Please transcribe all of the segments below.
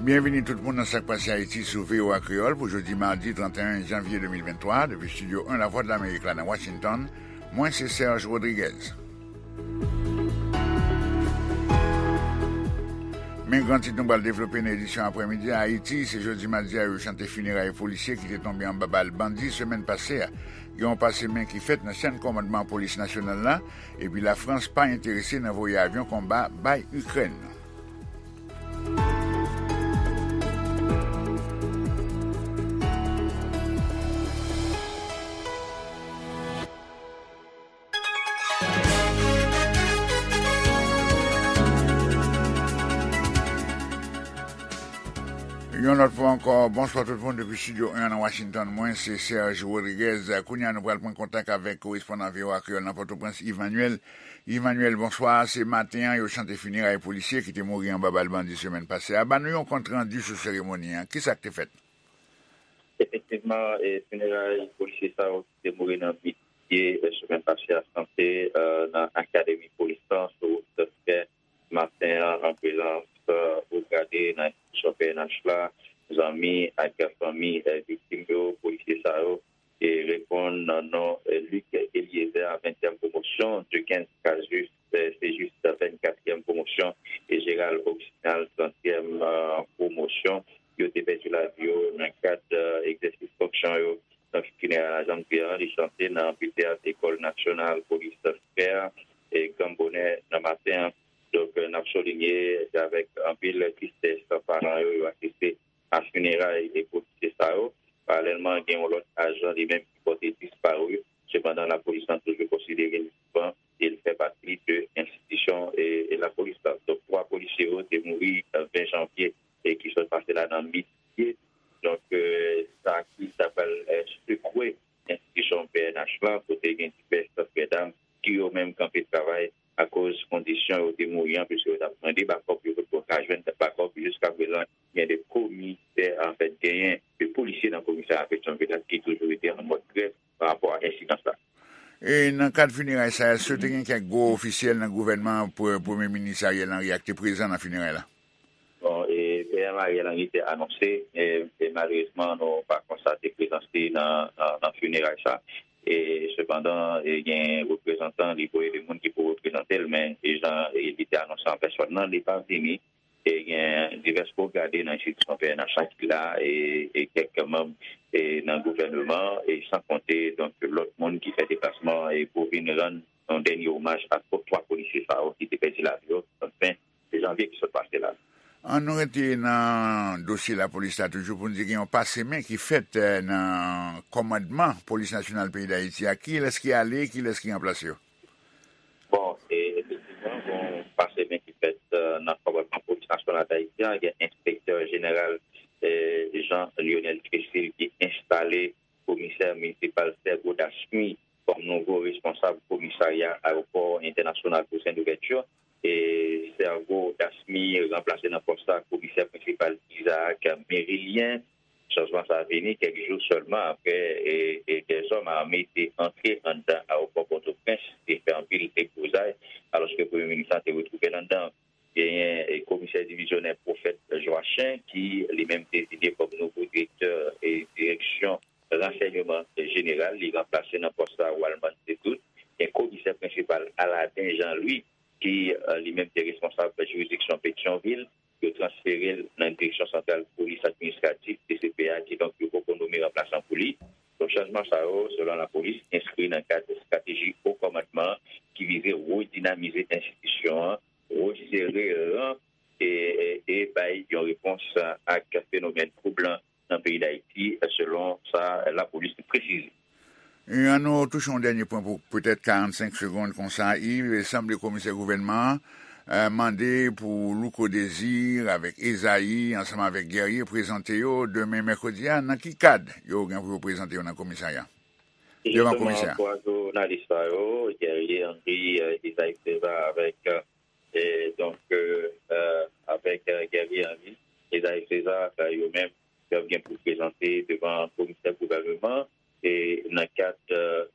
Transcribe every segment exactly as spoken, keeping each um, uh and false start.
Byenvini tout moun nan Sak Pase Ayiti sou V O A Kreyòl pou jodi madi trannteyen janvye de mil venntwa, depi estidyo en Lavwadlamerik la nan Washington. Mwen se Serge Rodriguez. Men gran tit nou pral devlope nan edisyon aprèmidi a. Ayiti, se jodi madi a yo chante fineray polisye ki te tonbe anba bal bandi semèn pase a. Gen yon pase men ki fèt nan chèn kòmandman polis nasyonal la, epi Lafrans pa enterese nan voye avyon konba bay Ikrèn. Yon lòt fwa ankò, bonswa tout moun depi estidyo en nan Washington. Mwen se Serge Rodriguez. Kounye a nou pral pran kontak avèk korespondan V O A Kreyòl nan Pòtoprens, Yves Manuel. Yves Manuel, bonswa. Se maten an yo chante fineray polisye ki te mouri anba bal bandi semèn pase a. Ban nou yon kont randi sou seremoni an. Kisa k te fèt? Efektivman, e, fineray polisye sa yo ki te mouri nan Bidye, e, semèn pase a, chante, e, nan Akademi Polis lan, sou wout Sèskè, maten an, an prezans, e, wo grade nan enstitisyon P N H la, zanmi ak fanmi, e, viktim yo, polisye sa yo, e, reponn nan non, e, Luc Eliezer, ventyèm pwomosyon, Duquesne Cajuste, e, se jis vennkatriyèm pwomosyon, e Gérald Oxinal, trantyèm, e, pwomosyon. Yo te pèdi lavi yo nan kad, e, egzèsis fonksyon yo. Donk, fineray la, jan m di an, li chante nan anfiteyat Lekòl Nasyonal Polis Sèskè, e, gran bonè nan maten an. Donk, e, n ap soulinye, se avèk anpil tristès paran yo, yo asiste a fineray e polisye sa yo. Paralèlman, gen yon lòt ajan li menm ki pòte disparu. Sepandan, lapolis lan toujou konsidere li vivan e li fè pati de enstitisyon e, e lapolis la. Donk, twa polisye yo te mouri, e, ven janvye e ki sot pase la nan Bidye. Donk, e, sa ki ta pral, e, sekwe enstitisyon P N H lan, kote gen divès frè dam ki yo menm kanpe travay akoz kondisyon yo te mouri an, piske yo t ap mande bakòp, yo potko ka jwenn bakòp. Jiska prezan, gen de komisè, anfèt, genyen de polisye nan komisarya Petyonvil la ki toujou rete an mòd grèv pa rapò a ensidan sa. E nan kad fineray sa, èske te gen kèk gwo ofisyèl nan gouvènman, pre-, Premye Minis Ariel Henry a ki te prezan nan fineray la? Bon, e P M Ariel Henry te anonse, e, e malerezman, nou pa konstate prezans li nan, nan, nan fineray sa. E sepandan, e gen reprezantan li voye de moun ki pou reprezante l, men e jan, e li te anonse an pèsòn nan, li pa vini. E gen divès wo grade nan enstitisyon P N H la ki la, e, e kèk manm, e nan gouvènman, e san konte, donk, lòt moun ki fè deplasman, e pou vin rann yon dènye omaj a twa polisye sa yo ki te pèdi lavi yo, ven janvye ki sot pase la. An nou rete nan dosye lapolis la toujou pou n di gen yon pase men ki fèt, e, nan kòmandman Polis Nasyonal peyi Dayiti a. Kilès ki ale, kilès ki ranplase yo? Bon, e, efektivman, gen yon pase men ki fèt, e, nan kòmandman Polis Nasyonal Dayiti a. Gen enspektè jeneral, e, Jean Lionel Tressil ki enstale komisè minisipal Sergo Dasmy kòm nouvo responsab komisarya ayewopò entènasyonal Toussaint Louverture. E Sergo Dasmy ranplase nan pòs sa komisè prensipal Isaac Merilien. Chanjman sa a vini kèk jou sèlman apre, e, e dèzòm ame te antre anndan ayewopò Pòtoprens e fè anpil deblozay, alòske premye minis lan te retwouve l anndan. Genyen, e, komisè divizyonè Prophète Joachim, ki li menm deziye kòm nouvo direktè, e, direksyon ransèyman jeneral. Li ranplase nan pòs la Walman Setout. Gen komisè prensipal Aladin Jean Louis, ki, e, li menm te responsab jiridiksyon Petyonvil. Yo transfere l nan Direksyon Santral Polis Administratif, D C P A, kidonk yo poko nome ranplasan pou li. Donk, chanjman sa yo, selon lapolis, enskri nan kad estrateji wo kòmandman ki vize redinamize enstitisyon an, resere ran e, e, e bay yon repons ak fenomèn twoublan nan peyi Dayiti, selon sa lapolis presize. E ann nou touche yon dènye pwen pou petèt karannsenk segonn konsa, Yves. Sanble komisè gouvènman an, e, mande pou Louko Désir avèk Ezayi, ansanm avèk Guerrier, prezante yo demen mèkredi a. Nan ki kad yo gen pou yo prezante yo nan komisarya? Devan komisè a. Jisteman, twa jounalis sa yo, Guerrier Henry, e, Ezayi César avèk, e, donk, e, e, avèk, e, Guerrier Henry, Ezayi César, e, yo menm, y ap gen pou prezante devan komisè gouvènman, e, nan kad,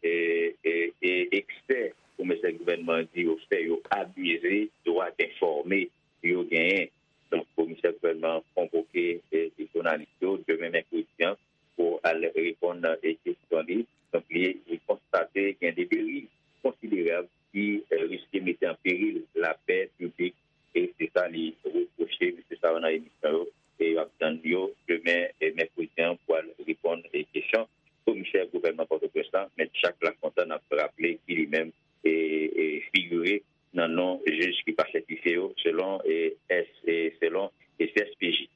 e, e, e, eksè komisè gouvènman di yo fè, yo abize dwa enfòme yo genyen. Donk, komisè Chèf gouvènman konvoke e, e jounalis yo demen mèkredi an pou al reponn e kesyon li. Donk, li, li konstate gen de deriv konsiderab ki e, riske mete an peril lapè piblik. E se sa li repwoche mesye sa yo nan emisyon yo. E y ap tann yo demen e, mèkredi an pou al reponn e kesyon komisè gouvènman Pòtoprens la, Mèt Jak Lafontan, n ap raple ki li menm e, e figire nan non jij ki pa sètifye yo, selon e, S, e selon e, C S P J.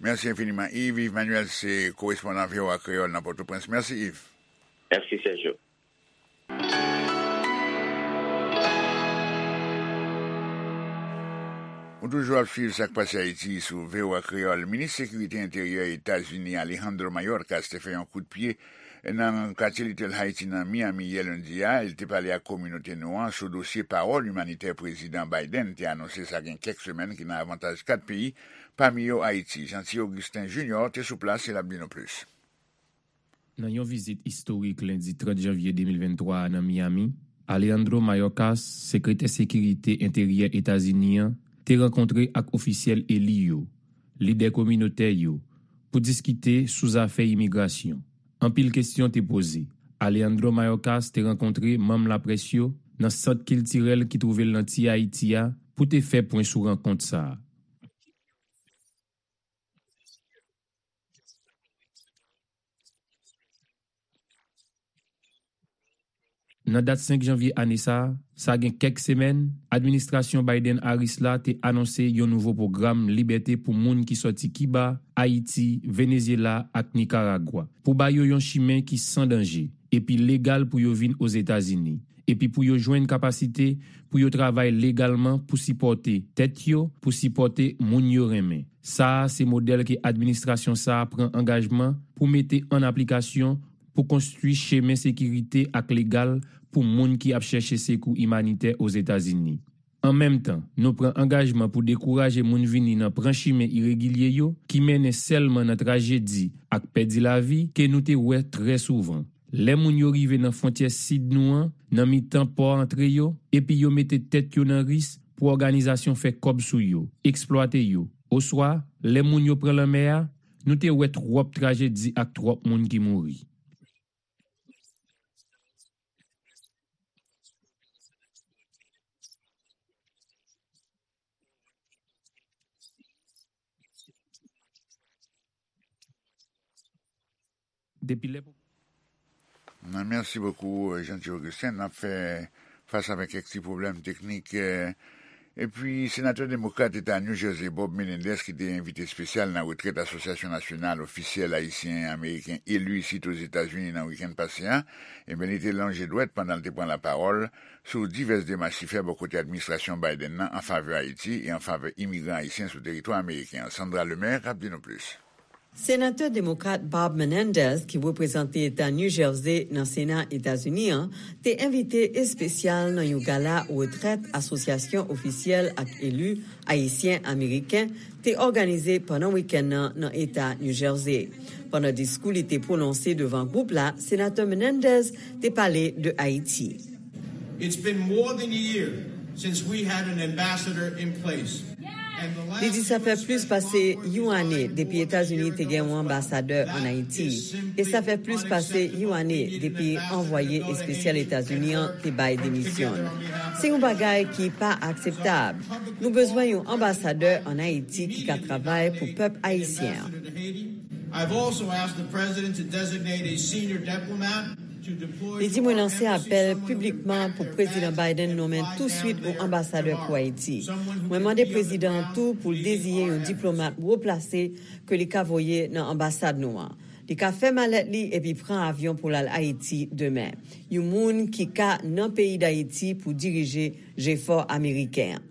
Mèsi enfiniman, Yves. Yves Manuel se korespondan V O A Kreyòl nan Pòtoprens. Mèsi, Yves. Mèsi, Sergio. Ou toujou ap swiv Sa k Pase Ayiti sou V O A Kreyòl. Minis Sekirite Enteryè Etazini Alejandro Mayorkas te fè yon kout pye nan katye Little Haiti nan Miami yè lendi a. Li te pale ak kominote nou an sou dosye pawòl imanitè Prezidan Biden te anonse sa gen kèk semèn ki nan avantaj kat peyi, pami yo Ayiti. Jeanty Augustin Junior te sou plas e l ap di nou plis. Nan yon vizit istorik lendi trant janvye de mil venntwa a nan Miami, Alejandro Mayorkas, sekretè sekirite enteryè Etazini an, te rankontre ak ofisyèl eli yo, lidè kominotè yo, pou diskite sou zafè imigrasyon. Anpil kesyon te poze. Alejandro Mayorkas te rankontre manm laprès yo nan sant kiltirèl ki twouve l nan Ti Ayiti a pou te fè pwen sou rankont sa a. Nan dat senk janvye ane sa a, sa gen kèk semèn, administrasyon Biden-Harris la te anonse yon nouvo pwogram libète pou moun ki sòti Kiba, Ayiti, Venezyela ak Nikaragwa, pou ba yo yon chimen ki san danje epi legal pou yo vin Ozetazini, epi pou yo jwenn kapasite pou yo travay legalman pou sipòte tèt yo, pou sipòte moun yo renmen. Sa a se modèl ke administrasyon sa a pran angajman pou mete an aplikasyon pou konstwi chemen sekirite ak legal pou moun ki ap chèche sekou imanitè Ozetazini. An menm tan, nou pran angajman pou dekouraje moun vini nan pran chimen iregilye yo, ki mennen sèlman nan trajedi ak pèdi lavi ke nou te wè trè souvan. Lè moun yo rive nan fwontyè sid nou an, nan mitan pò antre yo, epi yo mete tèt yo nan risk pou òganizasyon fè kòb sou yo, eksplwate yo, oswa, lè moun yo pran lanmè a, nou te wè twòp trajedi ak twòp moun ki mouri. Depi lè... Mèsi bokou, Jeanty Augustin. N ap fè fas avèk kèk ti pwoblèm teknik. Epi, senatè demokrat eta New Jersey, Bob Menendez, ki te envite espesyal nan retrèt Asosyasyon Nasyonal Ofisyèl Ayisyen Ameriken eli isit Ozetazini nan wikenn pase a, ebyen, li te lonje dwèt pandan l te pran lapawòl sou divès demach li fè bò kote administrasyon Biden nan an favè Ayiti e an favè imigran ayisyen sou teritwa ameriken an. Sandra Lemaire ap di nou plis. Senatè demokrat Bob Menendez, ki reprezante eta New Jersey nan Sena Etazini an, te envite espesyal nan yon gala retrèt Asosyasyon Ofisyèl ak Eli Ayisyen Ameriken te òganize pandan wikenn nan nan eta New Jersey. Pandan diskou li te pwononse devan gwoup la, Senatè Menendez te pale de Ayiti. It's been more than a year since we had an ambassador in place. Li di sa fè plis pase yon ane depi Etazini te gen yon anbasadè ann Ayiti, e sa fè plis pase yon ane depi anvwaye espesyal Etazini an te bay demisyon l. Se yon bagay ki pa akseptab. Nou bezwen yon anbasadè ann Ayiti ki ka travay pou pèp ayisyen an. I've also asked the president to designate a senior diplomat to deploy... Li di, mwen lanse apèl piblikman pou Prezidan Biden nonmen touswit yon anbasadè pou Ayiti. Mwen mande prezidan an tou pou l deziye yon diplomat wo plase ke li ka voye nan anbasad nou an. Li ka fè malèt li epi pran avyon pou l al Ayiti demen. Yon moun ki ka nan peyi Dayiti pou dirije jefò ameriken an.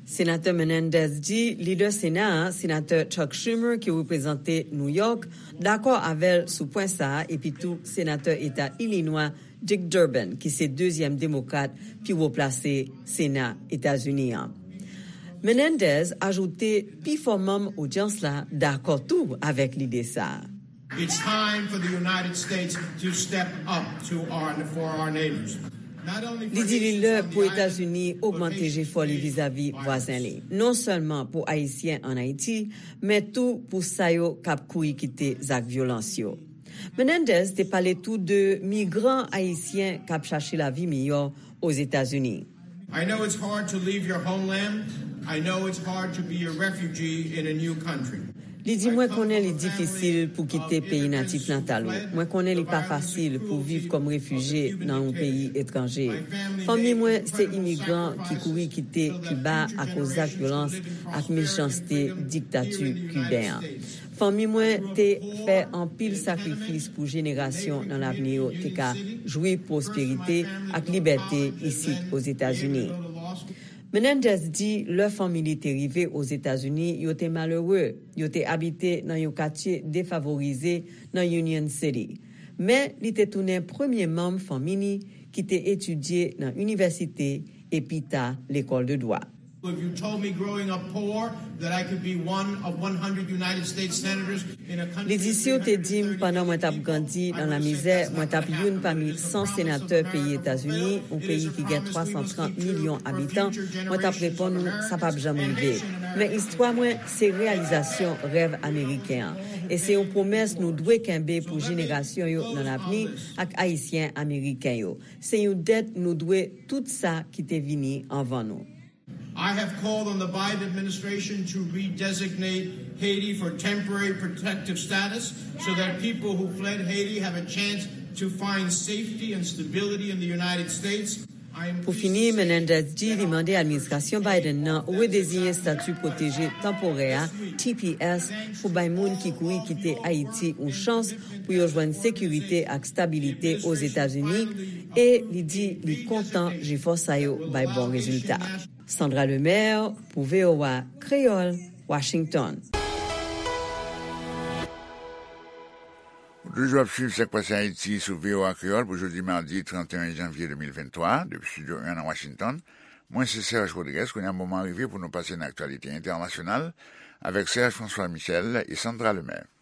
Senatè Menendez di lidè Sena a, Senatè Chuck Schumer, ki reprezante New York, dakò avè l sou pwen sa a, epi tou Senatè Eta Ilinwa Dick Durbin, ki se dezyèm demokrat pi wo plase Sena Etazini an. Menendez ajoute pifò manm odyans la dakò tou avèk lide sa a. It's time for the United States to step up to our, for our neighbors. Li di li lè pou Etazini ogmante jefò li vizavi vwazen li, non sèlman pou Ayisyen ann Ayiti, men tou pou sa yo k ap kouri kite zak vyolans yo. Menendez te pale tou de migran ayisyen k ap chache lavi miyò Ozetazini. I know it's hard to leave your homeland. I know it's hard to be a refugee in a new country. Li di, mwen konnen li difisil pou kite peyi natif natal ou. Mwen konnen li pa fasil pou viv kòm refijye nan yon peyi etranje. Fanmi mwen se imigran ki kouri kite Kiba akoz zak vyolans ak mechanste diktati kiben an. Fanmi mwen te fè anpil sakrifis pou jenerasyon nan lavni yo te ka jwi pwosperite ak libète isit Ozetazini. Menendez di lè fanmi li te rive Ozetazini, yo te malere, yo te abite nan yon katye defavorize nan Union City. Men, li te tounen premye manm fanmi li ki te etidye nan inivèsite e pita lekòl de dwa. If you told me growing up poor that I could be one of one hundred United States senators in a country Li di, si w te di m pandan mwen t ap grandi nan lamizè, mwen t ap youn pami san senatè peyi Etazini, yon peyi ki gen twa san trant milyon abitan, mwen t ap reponn ou, sa p ap janm rive. Men istwa mwen se reyalizasyon rèv ameriken an. E se yon pwomès nou dwe kenbe pou jenerasyon yo nan lavni ak Ayisyen ameriken yo. Se yon dèt nou dwe tout sa ki te vini anvan nou. I have called on the Biden administration to redesignate Haiti for temporary protective status so that people who fled Haiti have a chance to find safety and stability in the United States. Pou fini, Menendez di li mande administrasyon Biden nan redeziyen estati pwoteje tanporè a, T P S, pou bay moun ki kouri kite Ayiti yon chans pou yo jwenn sekirite ak stabilite Ozetazini, e li di li kontan jefò sa yo bay bon rezilta. Sandra Lemaire pou V O A Kreyòl, Washington. Ou toujou ap swiv Sak Pase Ayiti sou V O A Kreyòl pou jodi madi trant et un janvye de mil venntwa, depi Estidyo un nan Washington. Mwen se Serge Rodriguez, kounye a moman rive pou nou pase nan aktyalite entènasyonal avèk Serge François Michel e Sandra Lemaire.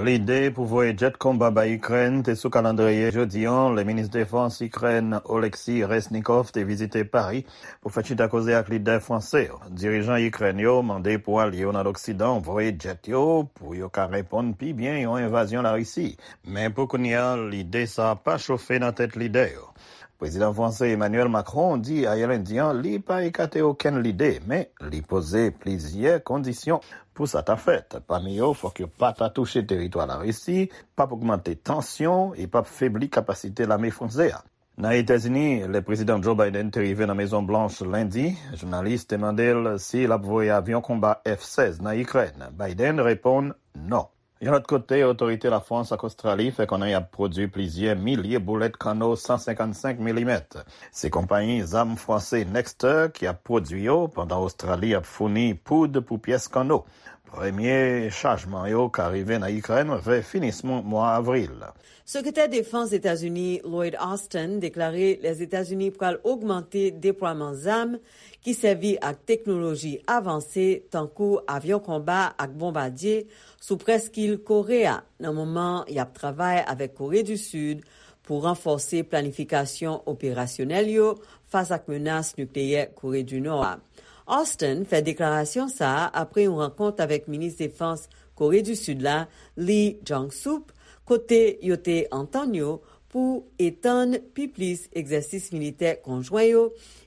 Lide pou voye djèt konba bay Ikrèn te sou kalandriye jodi an, lè minis defans Ikrèn Oleksiy Reznikov te vizite Pari pou fè chita koze ak lidè franse yo. Dirijan Ikrèn yo mande pou alye yo nan Loksidan voye djèt yo pou yo ka reponn pi byen yon envazyon Larisi. Men pou kounye a, lide sa a pa chofe nan tèt lidè yo. Prezidan franse Emmanuel Macron di ayè lendi an li pa ekate okenn lide, men li poze plizyè kondisyon pou sa ta fèt. Pami yo, fòk yo pa ta touche teritwa Larisi, p ap ogmante tansyon e p ap febli kapasite lame franse a. Nan Etazini, lè Prezidan Joe Biden te rive nan Mezon Blanch lendi, jounalis te mande l si l ap voye avyon konba F sèz nan Ikrèn. Biden reponn non. Yon lòt kote, otorite Lafrans ak Ostrali fè konnen y ap pwodui plizyè milye boulèt kanno san senkannsenk milimèt. Se konpayi zam franse Nexter ki ap pwodui yo, pandan Ostrali ap founi poud pou pyès kanno. Premye chajman yo ka rive nan Ikrèn vè finisman mwa avril. Sekretè Defans Etazini Lloyd Austin deklare Lèzetazini pral ogmante deplwaman zam ki sèvi ak teknoloji avanse tankou avyon konba ak bonbadye sou prèskil Kore a, nan moman y ap travay avèk Kore di Sid pou ranfòse planifikasyon operasyonèl yo fas ak menas nikleyè Kore di Nò a. Austin fè deklarasyon sa a apre yon rankont avèk minis defans Kore di Sid la, Lee Jong-sup, kote yo te antann yo pou etann pi plis egzèsis militè konjwen yo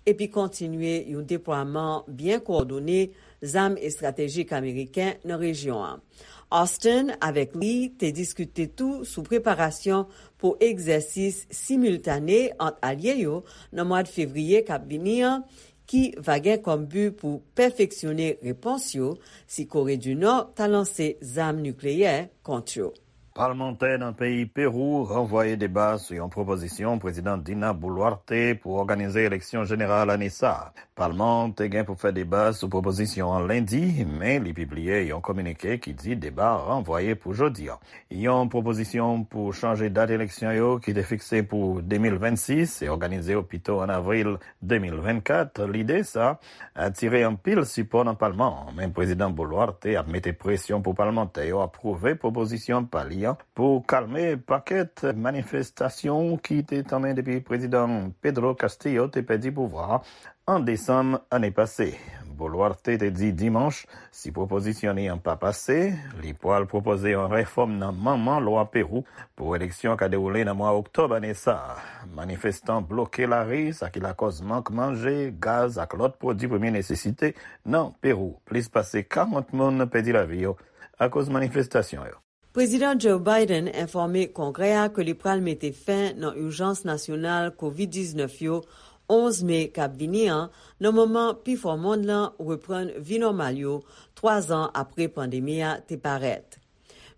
epi kontinye yon deplwaman byen kowòdone zam estratejik ameriken nan rejyon an. Austin avèk Lee te diskite tou sou preparasyon pou egzèsis similtane ant alye yo nan mwa fevriye k ap vini an, ki va gen kòm bi pou pèfeksyone repons yo si Kore di Nò ta lanse zam nikleyè kont yo. Palmantè nan peyi Pewou ranvwaye deba sou yon pwopozisyon Prezidan Dina Boluarte pou òganize eleksyon jeneral ane sa a. Palman an te gen pou fè deba sou pwopozisyon an lendi, men li pibliye yon kominike ki di deba a ranvwaye pou jodi a. Yon pwopozisyon pou chanje dat eleksyon yo ki te fikse pou de mil vennsis e òganize yo pito ann avril de mil vennkat, lide sa a atire anpil sipò nan palman an, men Prezidan Boluarte ap mete presyon pou palmantè yo apwouve pwopozisyon pa li pou kalme pakèt manifestasyon ki te tanmen depi Prezidan Pedro Castillo te pèdi pouvwa an desanm ane pase. Boluarte te di dimanch, si pwopozisyon li an pa pase, li pral pwopoze yon refòm nan manman lwa Pewou pou eleksyon ka dewoule nan mwa oktòb ane sa a. Manifestan bloke lari, sa ki lakòz mank manje, gaz ak lòt pwodui premye nesesite nan Pewou. Plis pase karant moun pèdi lavi yo akoz manifestasyon yo. Prezidan Joe Biden enfòme Kongrè a ke li pral mete fen nan ijans nasyonal kovid diznèf yo onz me k ap vini an, nan moman pifò mond lan reprann vi nòmal yo, twa zan apre pandemi a te parèt.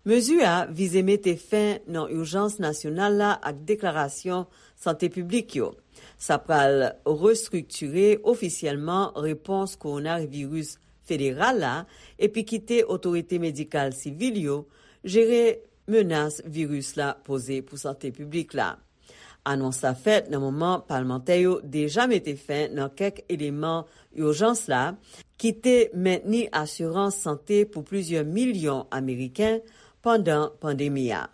Mezi a vize mete fen nan ijans nasyonal la ak deklarasyon sante piblik yo. Sa pral restriktire ofisyèlman repons kowonaviris federal la epi kite otorite medikal sivil yo jere menas viris la poze pou sante piblik la. Anons la fèt nan moman palmantè yo deja mete fen nan kèk eleman ijans la ki te mentni asirans sante pou plizyè milyon Ameriken pandan pandemi a.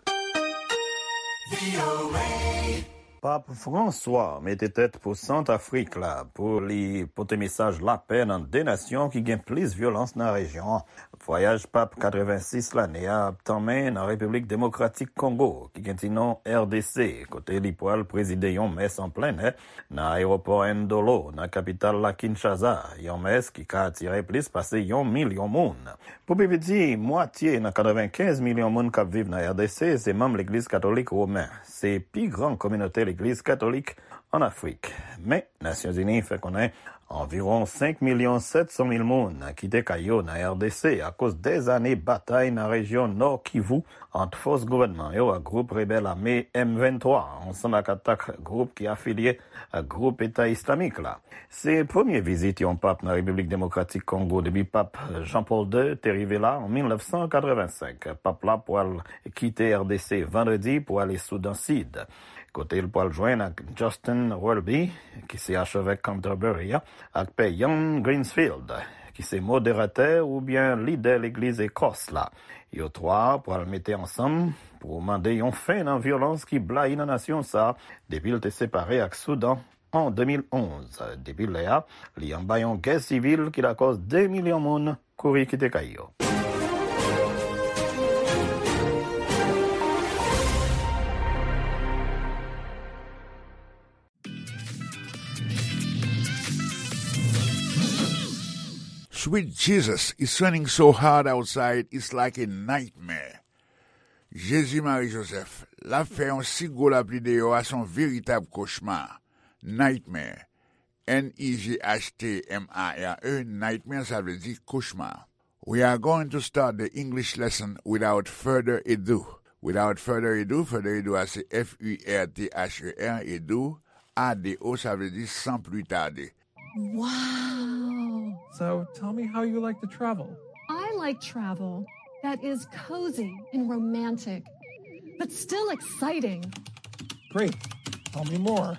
Pap Franswa mete tèt pou Sant Afrik la pou li pote mesaj lapè nan de nasyon ki gen plis vyolans nan rejyon an. Vwayaj Pap katrevensis lane a ap tanmen nan Repiblik Demokratik Kongo, ki gen ti non R D C, kote li pral prezide yon mès an plen nè nan ayewopò Ndolo, nan kapital la Kinshasa, yon mès ki ka atire plis pase yon milyon moun. Pou pi piti, mwatye nan katrevenkenz milyon moun k ap viv nan R D C se manm Legliz Katolik Women. Se pi gran kominote Legliz Katolik ann Afrik. Men, Nasyonzini fè konnen anviwon senk milyon sèt san mil moun kite kay yo nan R D C akoz dèzane batay nan rejyon Nò Kivu ant fòs gouvènman yo ak gwoup rebèl ame M venntwa, ansanm ak atak gwoup ki afilye ak gwoup Eta Islamik la. Se premye vizit yon pap nan Repiblik Demokratik Kongo depi pap Jean Paul de te rive la an mil nèf san katrevensenk. Pap la pral kite R D C vandredi pou ale Soudan Sid, kote l pral jwenn ak Justin Welby, ki se achevèk Canterbury a, ak Pè Ian Greensfield, ki se moderatè oubyen lidè Legliz Ekòs la. Yo twa pral mete ansanm pou mande yon fen nan vyolans ki blayi nan nasyon sa a depi l te separe ak Soudan an de mil onz. Depi lè a, li anba yon gè sivil ki lakòz de milyon moun kouri kite kay yo. Sweet Jesus, it's raining so hard outside, it's like a nightmare. Jezi Mari Jozèf, l ap fè yon si gwo lapli deyò a, se yon veritab kochma. Nightmare. N I G H T M A R E, nightmare, sa vle di kochma. We are going to start the English lesson without further ado. Without further ado, further ado a se F U R T H E R, ado, A D O, sa vle di sans plus tarder. Wow! So tell me how you like to travel. I like travel that is cozy and romantic, but still exciting. Great. Tell me more.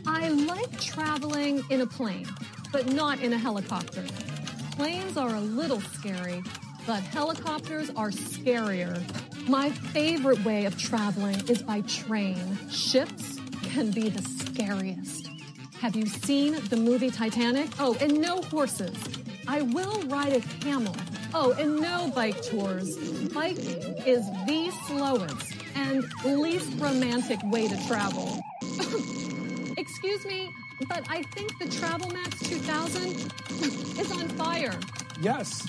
I like traveling in a plane, but not in a helicopter. Planes are a little scary, but helicopters are scarier. My favorite way of traveling is by train. Ships can be the scariest. Have you seen the movie Titanic? Oh, and no horses. I will ride a camel. Oh, and no bike tours. Biking is the slowest and least romantic way to travel. Excuse me, but I think the Travel Max two thousand is on fire. Yes.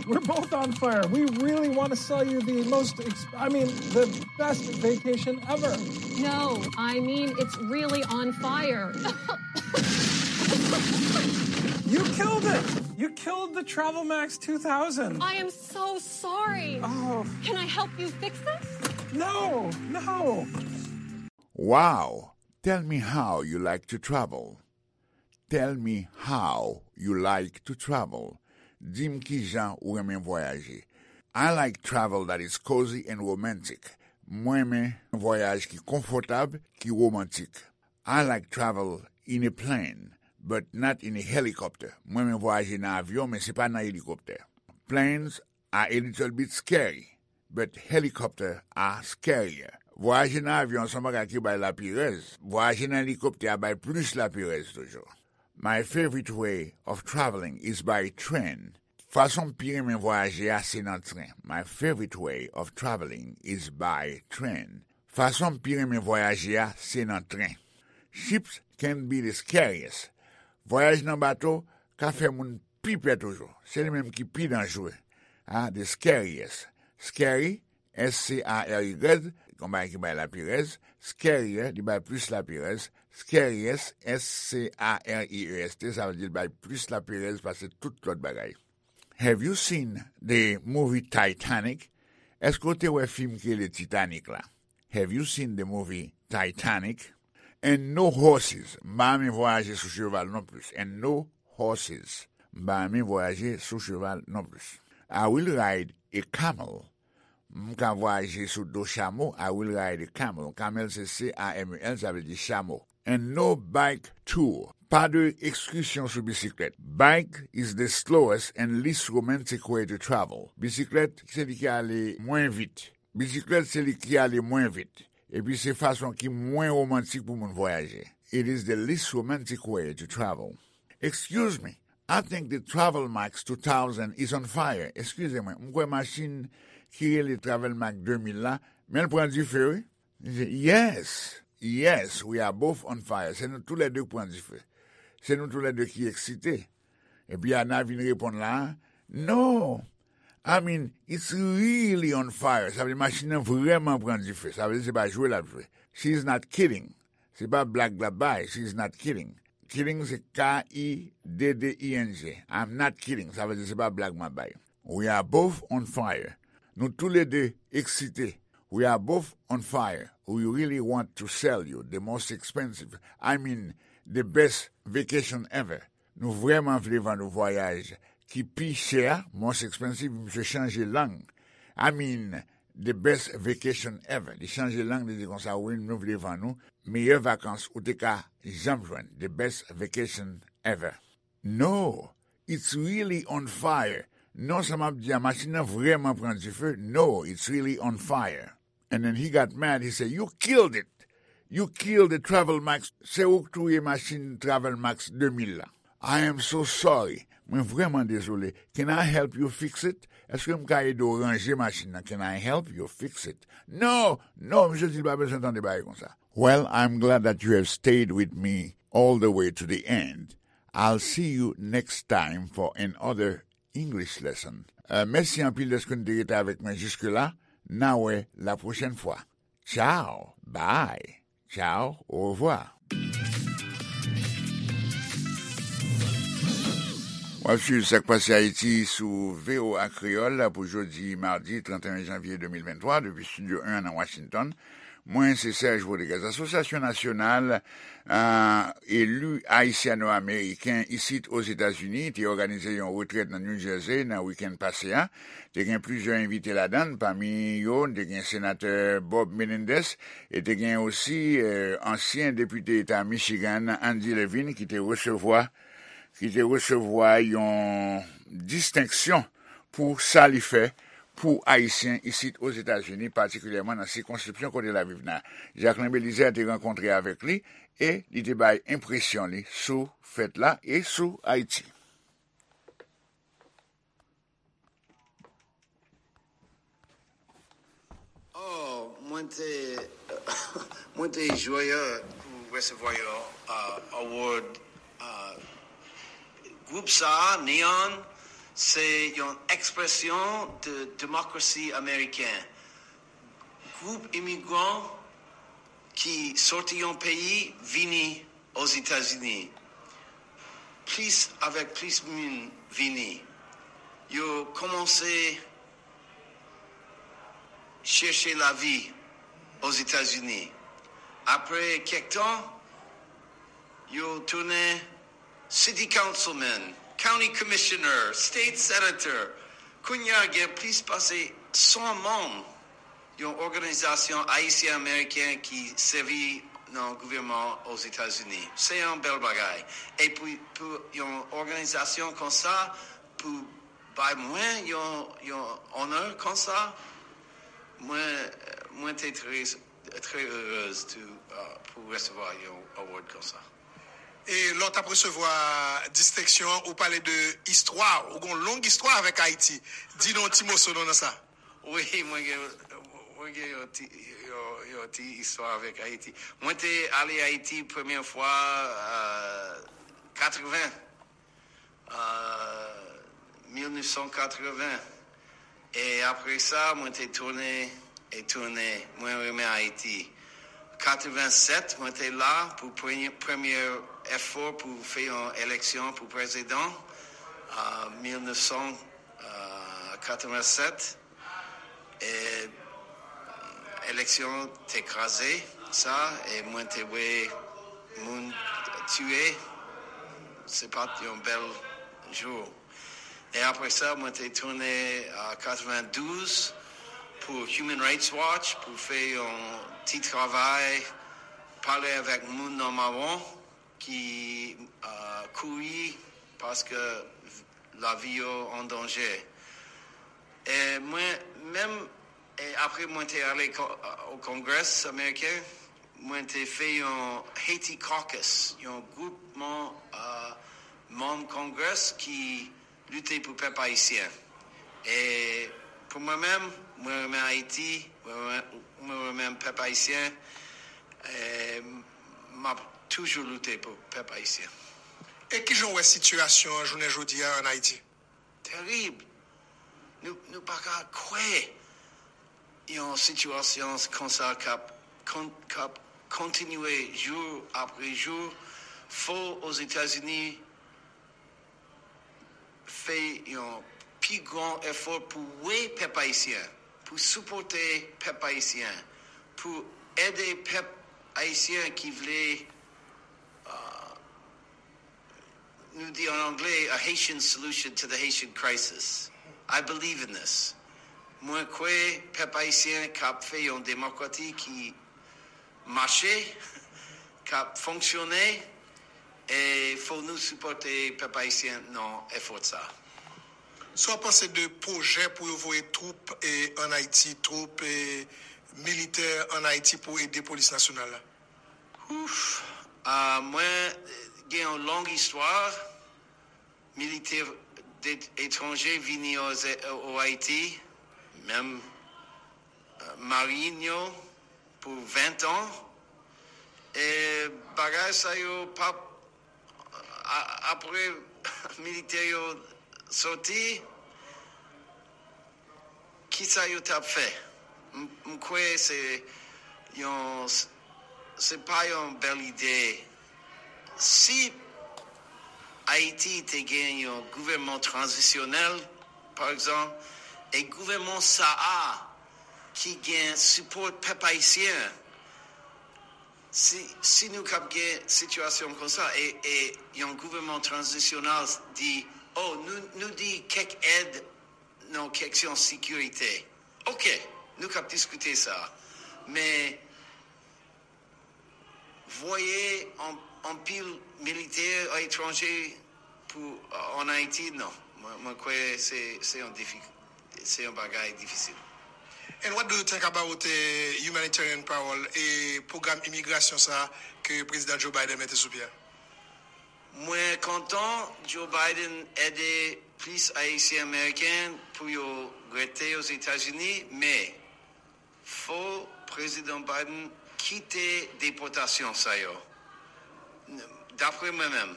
We're both on fire. We really want to sell you the most, ex- I mean, the best vacation ever. No, I mean, it's really on fire. You killed it. You killed the Travel Max two thousand. I am so sorry. Oh, Can I help you fix this? No, no. Wow! Tell me how you like to travel. Tell me how you like to travel. Di m kijan ou renmen vwayaje. I like travel that is cozy and romantic. Mwen renmen vwayaj ki konfòtab, ki womantik. I like travel in a plane, but not in a helicopter. Mwen renmen vwayaje nan avyon, men se pa nan elikoptè. Planes are a little bit scary. but helicopter are scarier. Vwayaje nan avyon se yon bagay ki bay lapirèz. Vwayaje nan elikoptè a bay plis lapirèz toujou. My favorite way of traveling is by train. Fason m pi renmen vwayaje a se nan tren. My favorite way of traveling is by train. Fason m pi renmen vwayaje a se nan tren. Ships can be the scariest. Vwayaj nan bato ka fè moun pi pè toujou. Se li menm ki pi danjere. Ah, the scariest. Scary, S C A R Y, yon bagay ki bay lapirèz. Scarier, li bay plis lapirèz. Scariest, S C A R I E S T, sa vle di li bay plis lapirèz pase tout lòt bagay. Have you seen the movie Titanic? Èske w te wè fim ki rele Titanic la? Have you seen the movie Titanic? And no horses. M pa renmen vwayaje sou cheval non plis. And no horses. M pa renmen vwayaje sou cheval non plis. I will ride a camel. M ka vwayaje sou do chamo. I will ride a camel. Camel se C A M E L, sa vle di chamo. And no bike tour. Pa de ekskusyon sou bisiklèt. Bike is the slowest and least romantic way to travel. Bisiklèt se li ki ale mwen vit. Bisiklèt se li ki ale mwen vit. Epi se fason ki mwen womantik pou moun vwayaje. It is the least romantic way to travel. Excuse me, I think the Travel Max two thousand is on fire. Eskize mwen, m kwè machin ki rele Travel Max de mil la, men l pran dife, wi. Li di, yes, yes, we are both on fire. Se nou toulède k pran dife. Se nou toulède ki eksite. Epi Ana vin reponn la, no, I mean, it's really on fire. Sa vle di machin nan vrèman pran dife. Sa vle di se pa jwe l ap jwe. She is not kidding. Se pa blag l ap bay. She is not kidding. Kidding se K I D D I N G. I'm not kidding. Sa vle di se pa blag m ap bay. We are both on fire. Nou toulède eksite. We are both on fire. We really want to sell you the most expensive, I mean, the best vacation ever. Nou vrèman vle vann ou vwayaj ki pi chè a, most expensive, misye chanje lang. I mean, the best vacation ever. Li chanje lang, li di konsa, wi, nou vle vann ou meyè vakans ou te ka janm jwenn. The best vacation ever. No, it's really on fire. Non, sa m ap di a, machin nan vrèman pran dife. No, it's really on fire. And then he got mad, he said, you killed it. You killed the Travel Max. Se ou k touye machin Travel Max de mil la. I am so sorry. Mwen vrèman dezole. Can I help you fix it? Èske m ka ede w ranje machin nan? Can I help you fix it? No, no, misye di l pa bezwen tande bagay konsa. Well, I'm glad that you have stayed with me all the way to the end. I'll see you next time for another English lesson. Euh, mèsi anpil dèske nou te rete avèk mwen jiske la. N a wè la pwochèn fwa. Ciao, bye, ciao, au revoir. W ap swiv Sa k Pase Ayiti sou V O A Kreyòl pou jodi madi trannteyen janvye de mil venntwa depi Estidyo en nan Washington. Mwen, se Serge Rodriguez. Asosyasyon Nasyonal, ah, Eli Ayisyano-Ameriken isit Ozetazini te òganize yon retrèt nan New Jersey nan wikenn pase a. Te gen plizyè envite ladan l, pami yo, te gen Senatè Bob Menendez, e te gen osi, eh, ansyen depite eta Michigan, Andy Levin, ki te resevwa, ki te resevwa yon distenksyon pou sa li fè pou Ayisyen isit Ozetazini, patikilyèman nan sikonskripsyon kote l ap viv nan. Jacquelin Belizaire te rankontre avèk li e li te bay enpresyon li sou fèt la e sou Ayiti. Oh, mwen te, mwen te jwè pou resevwa yon, uh, award, uh, gwoup sa, Neon, se yon ekspresyon de demokrasi ameriken. Gwoup imigran ki soti yon peyi vini Ozetazini. Plis avèk plis moun vini. Yo kòmanse chèche lavi Ozetazini. Apre kèk tan, yo tounen city councilman, county commissioner, state senator. Kounye a gen plis pase san manm yon òganizasyon ayisyen-ameriken ki sèvi nan gouvènman Ozetazini. Se yon bèl bagay. E pou, pou yon òganizasyon konsa, pou bay mwen yon, yon onè konsa, Mwen, mwen te trè, trè erez tou, uh, pou resevwa yon award konsa. E lè w t ap resevwa distenksyon an, ou pale de istwa, ou gen yon long istwa avèk Ayiti. Di nou yon ti moso nan sa. Wi, mwen gen, mwen gen yon ti, yon, yon ti istwa avèk Ayiti. Mwen te ale Ayiti premye fwa, euh, katreven, euh, mil nèf san katreven. E apre sa, mwen te tounen e tounen. Mwen renmen Ayiti. Katreven sèt, mwen te la pou premye, premye efò pou fè yon eleksyon pou prezidan. Euh, mil nèf san katreven sèt. E eleksyon te kraze sa, e mwen te wè moun tiye. Se pa t yon bèl jou. E apre sa, mwen te tounen an katreven douz pou Human Rights Watch pou fè yon ti travay, pale avèk moun nan mawon ki, euh, kouri paske lavi yo an danje. E mwen menm, e apre mwen te ale o Kongres Ameriken, mwen te fè yon Haiti Caucus, yon gwoupman, euh, manm Kongres ki lite pou pèp ayisyen. E pou mwen menm, mwen renmen Ayiti, mwen renmen, mwen renmen pèp ayisyen. E m ap toujou lite pou pèp ayisyen. E kijan w wè sitiyasyon an jounen jodi a ann Ayiti? Terib. Nou, nou pa ka kwè yon sitiyasyon konsa k ap kon, k ap kontinye jou apre jou. Fò Ozetazini fè yon pi gran efò pou wè pèp ayisyen, pou sipòte pèp ayisyen, pou ede pèp ayisyen ki vle, uh, nou di an anglè, a Haitian solution to the Haitian crisis. I believe in this. Mwen kwè pèp ayisyen k ap fè yon demokrasi ki mache, k ap fonksyone, e fò nou sipòte pèp ayisyen nan efò sa. Sa w panse de pwojè pou yo voye twoup e, ann Ayiti, twoup e, militè ann Ayiti pou ede polis nasyonal la? Ouf! Ah, mwen gen yon long istwa. Militè etranje vini o Ayiti, menm, euh, marin yo pou ven tan. E bagay sa yo p ap, a, apre militè yo soti, kisa yo t ap fè? M, m kwè se yon, se pa yon bèl ide. Si Ayiti te gen yon gouvènman tranzisyonèl, pa egzanp, e gouvènman sa a ki gen sipò pèp ayisyen, si, si nou k ap gen sitiyasyon konsa, e, e yon gouvènman tranzisyonèl di, oh, nou, nou di kèk èd nan kesyon sekirite. Oke, nou k ap diskite sa. Men, voye an, anpil militè etranje pou, euh, ann Ayiti, non. Mwen, mwen kwè se, se yon difi-, se yon bagay difisil. And what do you think about the humanitarian parole e pwogram imigrasyon sa ke Prezidan Joe Biden mete sou pye a? Mwen kontan Joe Biden ede plis Ayisyen Ameriken pou yo rete Ozetazini, men fò Prezidan Biden kite depòtasyon sa yo. Dapre mwen menm,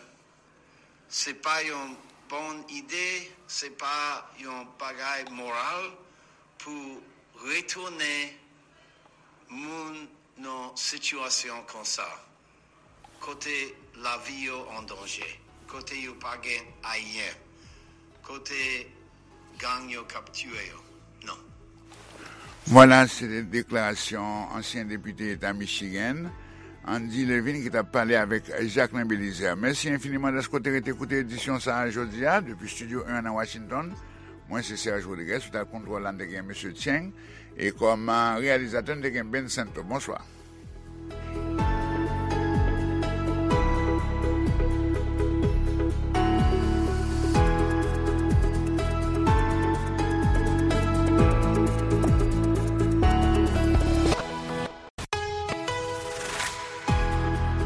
se pa yon bon ide, se pa yon bagay moral pou retounen moun nan sitiyasyon konsa, kote lavi yo an danje, kote yo pa gen ayen, kote gang yo k ap tiye yo. Non. Vwala, se te deklarasyon ansyen depite eta Michigan, Andy Levin, ki t ap pale avèk Jacquelin Belizaire. Mèsi enfiniman dèske w te rete koute edisyon sa a jodi a. Depi estidyo en nan Washington, mwen se Serge Rodriguez, sou tab kontwòl la, n te gen mesye Cheng, e kòm, euh, reyalizatè, n te gen Ben Santo. Bonswa.